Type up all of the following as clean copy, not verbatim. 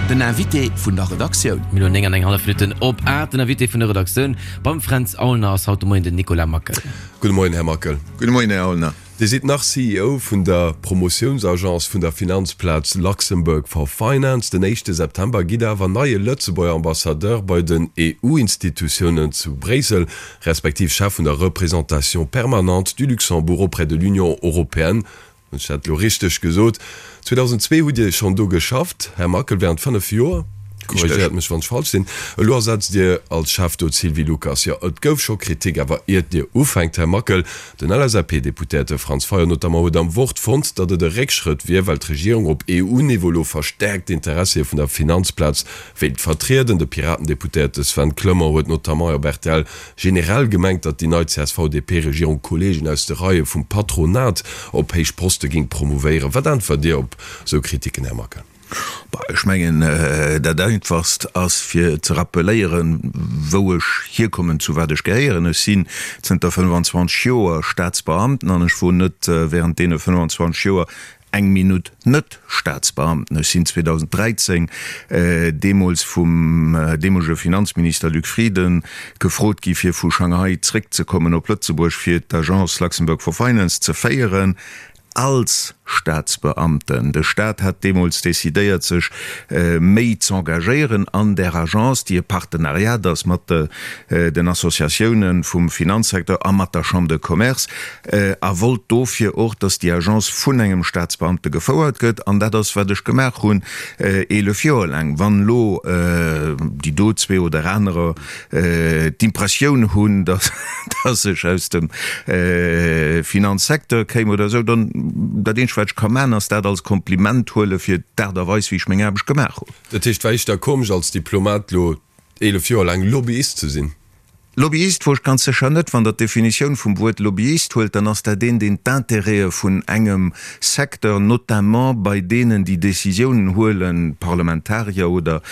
Den Invité vun der Redaktioun. Mir elo 9 an eng hallef Minutten op 8. Den Invité vun der Redaktioun beim Fränz Aulner ass haut de Moien den Nicolas Mackel. Gudde Moien, Här Mackel. Gudde Moien, Här Aulner. Dir sidd nach CEO vun der Promotiounsagence vun der Finanzplaz Luxembourg for Finance. Den éischte September gitt Der awer neie Lëtzebuerger Ambassadeur bei den EU-Institutiounen zu Bréissel, respektiv Chef vun der Représentation permanente du Luxembourg auprès de l'Union européenne. Hunn ech dat elo richteg gesot? 2002 hutt Dir schonn do geschafft, Här Mackel, während 5 Joer. Korrigéiert mech, wann ech falsch sinn. Elo ersetzt Dir als Chef do d'Sylvie Lucas. Jo, et gouf scho Kritik, awer iert Dir ufänkt, Här Mackel, den LSAP-Deputéierte Franz Fayot notamment huet am Wort fonnt, datt et e Réckschrëtt wier, well d'Regierung op EU-Niveau elo verstäerkt d'Interessie vun der Finanzplaz wéilt vertrieden. De Piraten-Deputéierte Sven Clement huet notamment op rtl Generell gemengt, datt déi nei CSV-DP-Regierung Kolleegen aus de Reie vum Patronat op héich Poste géing promouvéieren. Wat äntwert Dir op esou Kritiken, Här Mackel? Bah, ech mengen, dat Einfachst ass fir ze rappeléieren, wou ech hierkommen, zu wat ech gehéieren. Ech sinn zënter 25 Joer Staatsbeamten an ech wor net während deene 25 Joer eng Minutt net Staatsbeamten. Ech sinn 2013 deemools vum deemolege Finanzminister Luc Frieden gefrot gi fir vu Shanghai zréckzekommen op Lëtzebuerg fir d'Agence Luxembourg for Finance ze féieren als Staatsbeamten. De Staat hat deemools decidéiert sech méi z'engagéieren an där Agence, déi e Partenariat ass mat den Associatiounen vum Finanzsecteur a mat der Chambre de Commerce. A wollt dofir och, dass déi Agence vun engem Staatsbeamte gefouert gëtt. An dat ass, wat ech gemaach hunn, 11 Joer laang. Wann elo déi do zwee oder anerer d'Impressioun hunn, dass ech aus dem Finanzsecteur kéim oder esou, dann, dat eenzegt, wat ech ka maachen, ass dat als Kompliment huele fir d'Aart a Weis, wéi ech meng Aarbecht gemaach hunn. Dat heescht, war éischter komesch als Diplomat elo 11 Joer laang Lobbyist ze sinn? Lobbyist wor ech ganz sécher net. Wann Der d'Definitioun vum Wuert Lobbyist huelt, dann ass dat een, deen d'Intérêtë vun engem Secteur, notamment bei deenen, déi Décisiounen huelen, Parlamentarier oder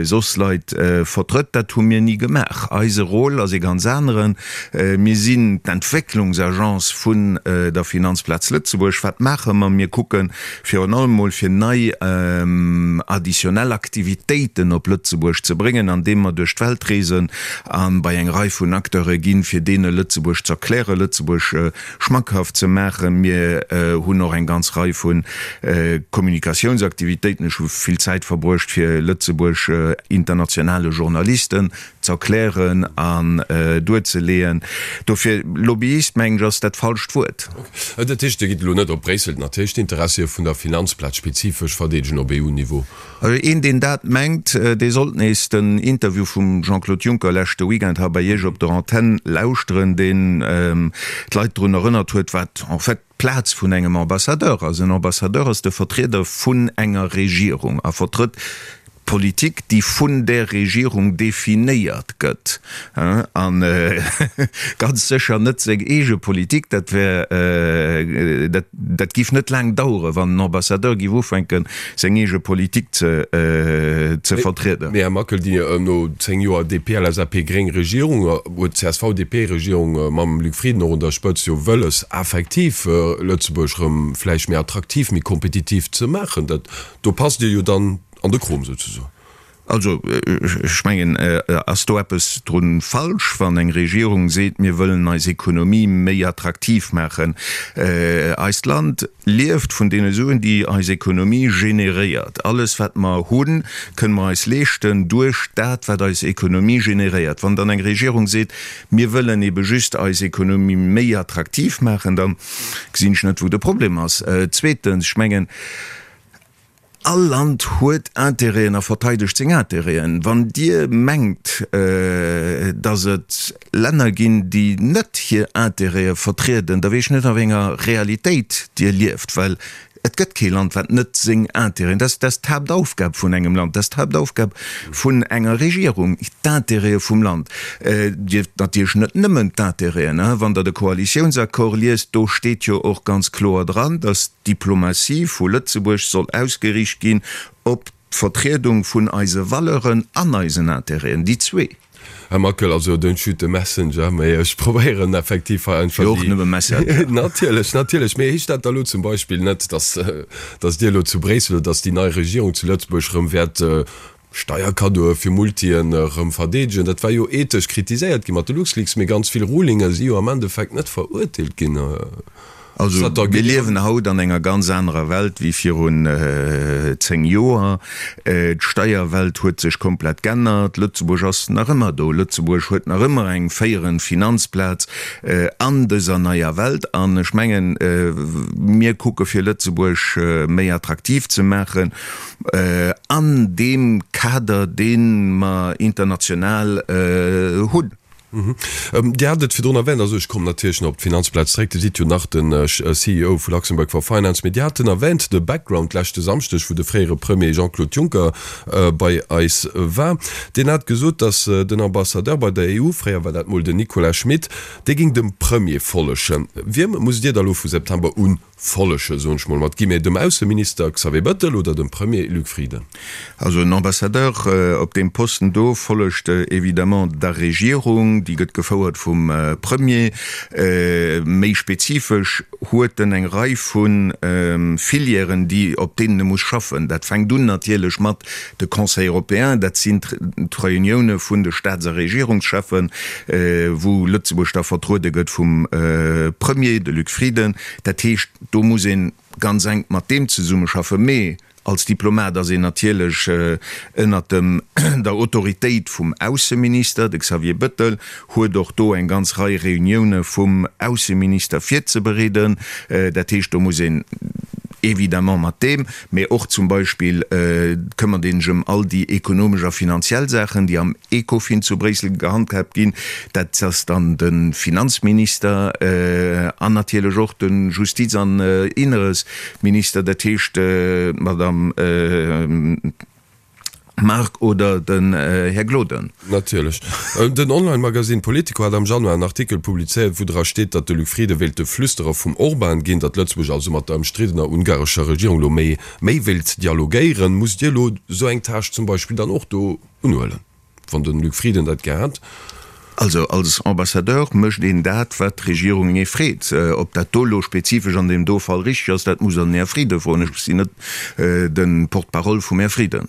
soss Leit, vertrëtt. Dat hu mir ni gemaach. Eise Rôle ass ee ganz aneren. Mir sinn d'Entwécklungsagence vun der Finanzplaz Lëtzebuerg. Wat maache mer? Mir kucken, virun allem mol fir nei additionnel Aktivitéiten op Lëtzebuerg ze bréngen, andeem mer duerch d'Welt reesen a bei eng Rei vun Acteure ginn, fir deene Lëtzebuerg z'erklären, Lëtzebuerg schmackhaft ze maachen. Mir hunn och eng ganz Rei vu Kommunikatiounsaktivitéiten. Ech hu vill Zäit verbruecht, fir Lëtzebuerg internationale Journalisten z'erklären an duerzeleeën. Dofir, Lobbyist, mengen ech, ass dat falscht Wuert. Ok. Dat heescht, Dir gitt elo net op Bréissel natierlech d'Interessie vun der Finanzplaz spezifesch verdeedegen op EU-Niveau? Also een, deen dat mengt, dee sollt nees den Interview vum Jean-Claude Juncker leschte Weekend hei bei Iech op der Antenn lauschteren, deen d'Leit drun erënnert huet, wat en fait d'Plaz vun engem Ambassadeur ass. En Ambassadeur ass de Vertrieder vun enger Regierung a vertrëtt Politik, déi vun där Regierung definéiert gëtt, a ganz sécher net seng eege Politik. Dat wär, dat, dat géif net laang daueren, wann en Ambassadeur géif ufänken, seng eege Politik ze, ze vertrieden. Mee Här Mackel, déi no 10 Joer DP-LSAP-gréng Regierung, huet d'CSV-DP-Regierung mam Luc Frieden och un der Spëtzt jo wëlles, effektiv Lëtzebuerg erëm vläicht méi attraktiv, méi kompetitiv ze maachen. Dat, do passt Dir jo dann An de Krom souzesoen. Also, ech mengen, ass do eppes dru falsch, wann eng Regierung seet, mir wëllen eis Ekonomie méi attraktiv maachen? Eist Land lieft vun deene Suen, déi eis Ekonomie generéiert. Alles, wat mer hunn, kënne mer eis leeschten duerch dat, wat eis Ekonomie generéiert. Wann dann eng Regierung seet, mir wëllen ebe just eis Ekonomie méi attraktiv maachen, da gesinn ech net, wou de Problem ass. Zweetens, ech mengen, All Land huet Intérêten a verteidegt seng Intérêten. Wann Dir mengt, datt et Länner ginn, déi net hir Intérêtë vertrieden, da weess ech net, a wéi enger Realitéit Dir lieft, well et gëtt kee Land, wat net seng Intérêten, dat ass d'Haaptaufgab vun engem Land, dat ass d'Haaptaufgab vun enger Regierung, d'Intérêtë vum Land. Dir natierlech net nëmmen d'Intérêten. Wann Der de Koalitiounsaccord liest, do steet jo och ganz kloer dran, datt D'Diplomatie vu Lëtzebuerg soll ausgeriicht ginn op d'Vertriedung vun eise Valeuren an eisen Intérêten, déi zwee. Här Mackel, also don't shoot the messenger, mee ech probéieren effektiv hei einfach Jo, och nëmme Messenger. Natierlech, natierlech. Mee heescht dat da lo zum Beispill net, dass, dass Dir elo zu Bréissel oder dass déi nei Regierung zu Lëtzebuerg erëm wäert Steierkaddoe fir Multien erëm verdeedegen? Dat war jo ethesch kritiséiert gi mat de LuxLeaks, mee ganz vill Rulinge si jo am Endeffekt net verurteelt ginn. Also mir liewen haut an enger ganz anerer Welt wéi virun 10 Joer. D'Steierwelt huet sech komplett g'ännert. Lëtzebuerg ass nach ëmmer do. Lëtzebuerg huet nach ëmmer eng féierend Finanzplaz an dëser neier Welt. An ech mengen, mir kucke fir Lëtzebuerg méi attraktiv ze maachen an deem Kader, dee mer international hunn. Dir hat et virdrun erwänt, also ech kommen natierlech nach op d'Finanzplaz zréck, Dir sidd jo nach de CEO vu Luxembourg for Finance, mee Dir haten erwänt de Background leschte Samschdeg, wou de fréiere Premier Jean-Claude Juncker bei eis war. Deen hat gesot, datt den Ambassadeur bei der EU, fréier war dat mol den Nicolas Schmit, dee géing dem Premier follegen. Wiem musst Dir da lo vu September un Follege, soen ech mol mat Guillemets, dem Ausseminister Xavier Bettel oder dem Premier Luc Frieden? Also en Ambassadeur op deem Posten do follegt évidemment der Regierung, déi gëtt gefouert vum Premier. Méi spezifesch huet en eng Rei vu Filièren, déi op deenen e muss schaffen. Dat fänkt un natierlech mat de Conseil européen, dat sinn d'Reunioune vun de Staats a Regierungscheffen, wou Lëtzebuerg da vertruede gëtt vum Premier, de Luc Frieden. Dat heescht, do muss ee ganz enk mat deem zesummeschaffen. Mee als Diplomat ass een natierlech ënnert dem der Autoritéit vum Ausseminister. De Xavier Bettel huet och do eng ganz Rei Reunioune vum Ausseminister virzebereeden. Dat heescht, do muss een évidemment mat deem, mee och zum Beispill këmmert ee sech ëm all déi ekonomesch a finanziell Saachen, déi am Ecofin zu Bréissel gehandhaabt ginn. Dat ass dann de Finanzminister an natierlech och de Justiz an Inneresminister, dat heescht d'Madame Margue oder den Här Gloden. Natierlech. Den Online-Magasinn Politico hat am Januar en Artikel publizéiert, wou dra steet, datt de Luc Frieden wéilt de Flüsterer vum Orban ginn, datt Lëtzebuerg also mat der ëmstriddener ungarescher Regierung elo méi méi wéilt dialogéieren. Musst Dir elo esou eng Tâche zum Beispill dann och do unhuelen, wann de Luc Frieden dat gär hätt? Also als Ambassadeur mécht een dat, wat d'Regierung ee freet. Ob dat do elo spezifesch an deem do Fall richteg ass, dat muss Der den Här Frieden froen. Ech sinn net de Porte-parole vum Här Frieden.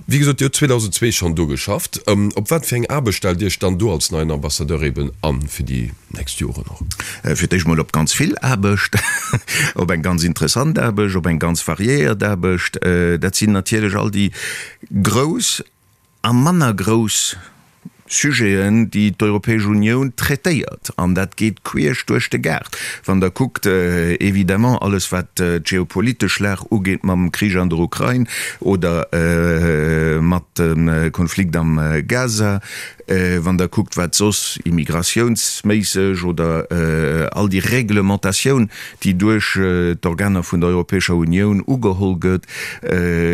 Wéi gesot, Dir hutt 2002 schonn do geschafft. Op wat fir eng Aarbecht stellt Dir Iech dann do als neien Ambassadeur eben an, fir déi nächst Joren och? Fir d'éischt mol op ganz vill Aarbecht, op eng ganz interessant Aarbecht, op eng ganz variéiert Aarbecht. Dat sinn natierlech all déi grouss a manner grouss Sujeten, déi d'Europäesch Unioun traitéiert. An dat geet queesch duerch de Gaart. Wann Der kuckt, évidemment alles wat d'geopolitesch Lag ugeet mam Krich an der Ukrain oder mat dem Konflikt am Gaza, wann Der kuckt wat soss immigratiounsméisseg oder all déi Reglementatioun, déi duerch d'Organer vun der Europäescher Unioun ugeholl gëtt,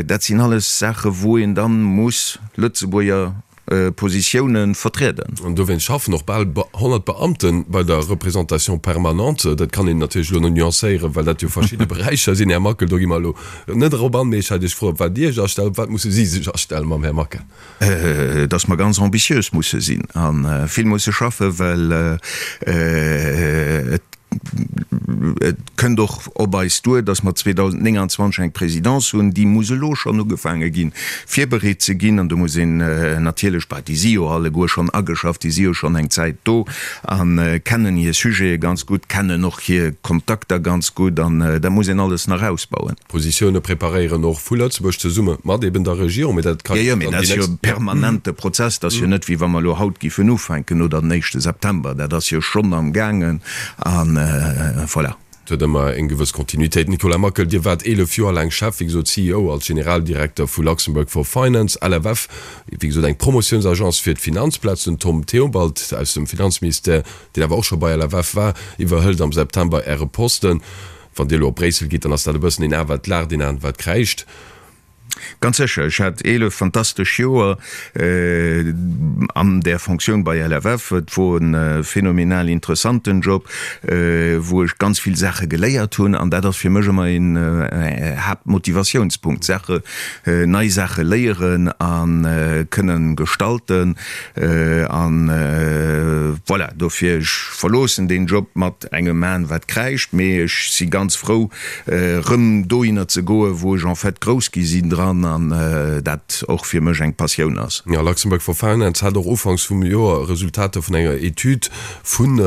dat sinn alles Saache wou een da muss Lëtzebuerger Positiounen vertrieden. An dowéinst schaffen och bal 100 Beamte bei der Représentation permanente. Dat kann een natierlech elo nuancéieren, well dat jo verschidde Beräicher sinn, Här Mackel. Do gi mer elo net erop an. Mee ech hat Iech gefrot, op wat Dir Iech astellt. Op wat musse si sech astellen mam Här Mackel? Dass mer ganz ambitiös musse sinn a vill musse schaffen, well et Et kënnt och op eis duer, dass mer 2029 eng Présidence hunn, déi muss elo schonn ugefaange ginn, virbereet ze ginn. An do muss een natierlech, bah, déi si jo alleguer schonn ageschafft, déi si jo schonn eng Zäit do a kennen hir Sujete ganz gutt, kennen och hir Kontakter ganz gutt an dat muss een alles nach ausbauen. Positioune preparéieren, och vu Lëtzebuerg zesumme mat eben der Regierung, mee dat ka jo dann déi nächst. Jo, jo, mee dat ass jo e permanente Prozess. Dat ass jo net, wéi wa mer elo haut giffen ufänken oder den éischte September. Dat ass jo schonn am gaangen a voilà. Et huet ëmmer eng gewëss Kontinuitéit. Nicolas Mackel, Dir waart 11 Joer laang Chef, wéi gesot CEO als Generaldirekter vu Luxembourg for Finance, LFF, wéi gesot eng Promotiounsagence fir d'Finanzplaz. Den Tom Theobald aus dem Finanzministère, deen awer och scho bei LFF war, iwwerhëlt am September Äre Posten. Wann Dir elo op Bréissel gitt, dann ass dat e bëssen een A wat laacht, een A wat kräischt. Ganz sécher. Ech hat 11 fantastesch Joer an där Fonctioun bei LFF. Et wor e phänomenal interessanten Job, wou ech ganz vill Saache geléiert hunn. An dat ass fir mech ëmmer een Haaptmotivatiounspunkt, Saache, nei Saache léieren a kënnen gestalten. An voilà, dofir, ech verloossen deen Job mat engem Aen, wat kräischt, mee ech si ganz frou, rëm dohinner ze goen, wou ech en fait grouss gi sinn dran an dat och fir mech eng Passioun ass. Jo, Luxembourg for Finance hat och ufanks vum Joer Resultater vun enger Etüd vun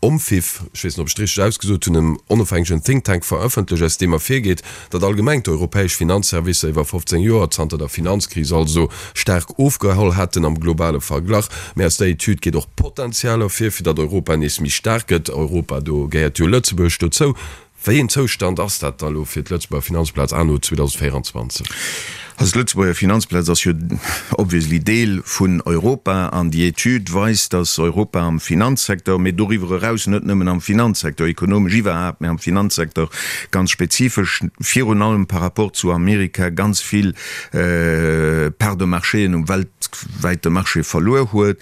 OMFIF, ech weess net, ob ech et richteg ausgesot hunn, engem onofhängegen Think Tank, verëffentlecht, aus deem ervirgeet, datt allgemeng d'europäesch Finanzservicer iwwer 15 Joer, zanter der Finanzkris also, staark ofgeholl hätten am globale Verglach. Mä aus der Etüd geet och Potenzial ervir, fir datt Europa nees méi staark gëtt. Europa, do gehéiert jo Lëtzebuerg dozou. Wéi een Zoustand ass dat da lo fir d'Lëtzebuerger Finanzplaz anno 2024? Also d'Lëtzebuerger Finanzplaz ass jo obviously Deel vun Europa an déi Etüd weist, datt Europa am Finanzsecteur, mee doriwwer eraus net nëmmen am Finanzsecteur, ekonomesch iwwerhaapt, mee am Finanzsecteur ganz spezifesch, virun allem par rapport zu Amerika ganz vill Parts de marchéen um weltwäite Marché verluer huet.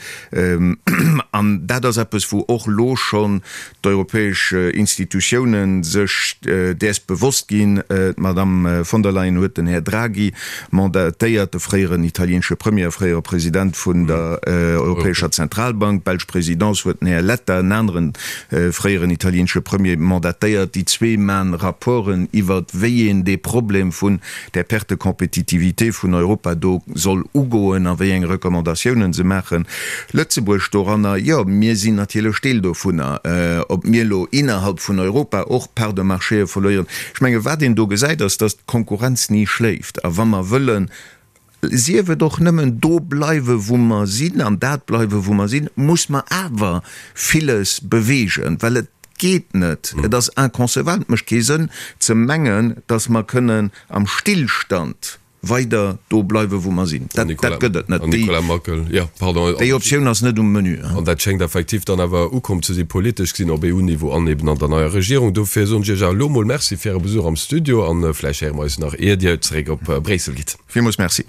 An dat ass eppes, wou och elo schonn d'europäesch Institutiounen sech däers bewosst ginn. D'Madame von der Leyen huet den Här Draghi mandatéiert, de fréieren italieenesche Premier a fréiere President vun der Europäescher Zentralbank. D'belsch Présidence huet den Här Letta, en aneren fréieren italieenesche Premier, mandatéiert. Déi zwee man Rapporten iwwert wéi een dee Problem vun där Perte de compétitivité vun Europa do soll ugoen a wéi eng Recommandatiounen se maachen. Lëtzebuerg doranner, jo, mir sinn natierlech Deel dovunner. Ob mir elo innerhalb vun Europa och Parts de marchéë verléieren, ech menge wat een do gesäit, ass, datt d'Konkurrenz ni schléift. A wa mer wëllen, sief et och nëmmen do bleiwe wou mer sinn an dat bleiwe wou mer sinn, muss mer awer villes beweegen, well et geet net, et ass inconcevable, et mécht kee Sënn ze mengen, datt mer kënnen am Stillstand weider do bleiwe wou mer sinn. Dat gëtt et net. Déi Optioun ass net um Menu. An dat schéngt effektiv dann awer ukomm ze si, politesch gesinn, op EU-Niveau an eben an der neier Regierung. Dofir soen ech Iech awer elo emol Merci fir Äre Besuch am Studio an vläicht héiere mer eis nach, ier Dir zeréck op Bréissel gitt. Villmools Merci.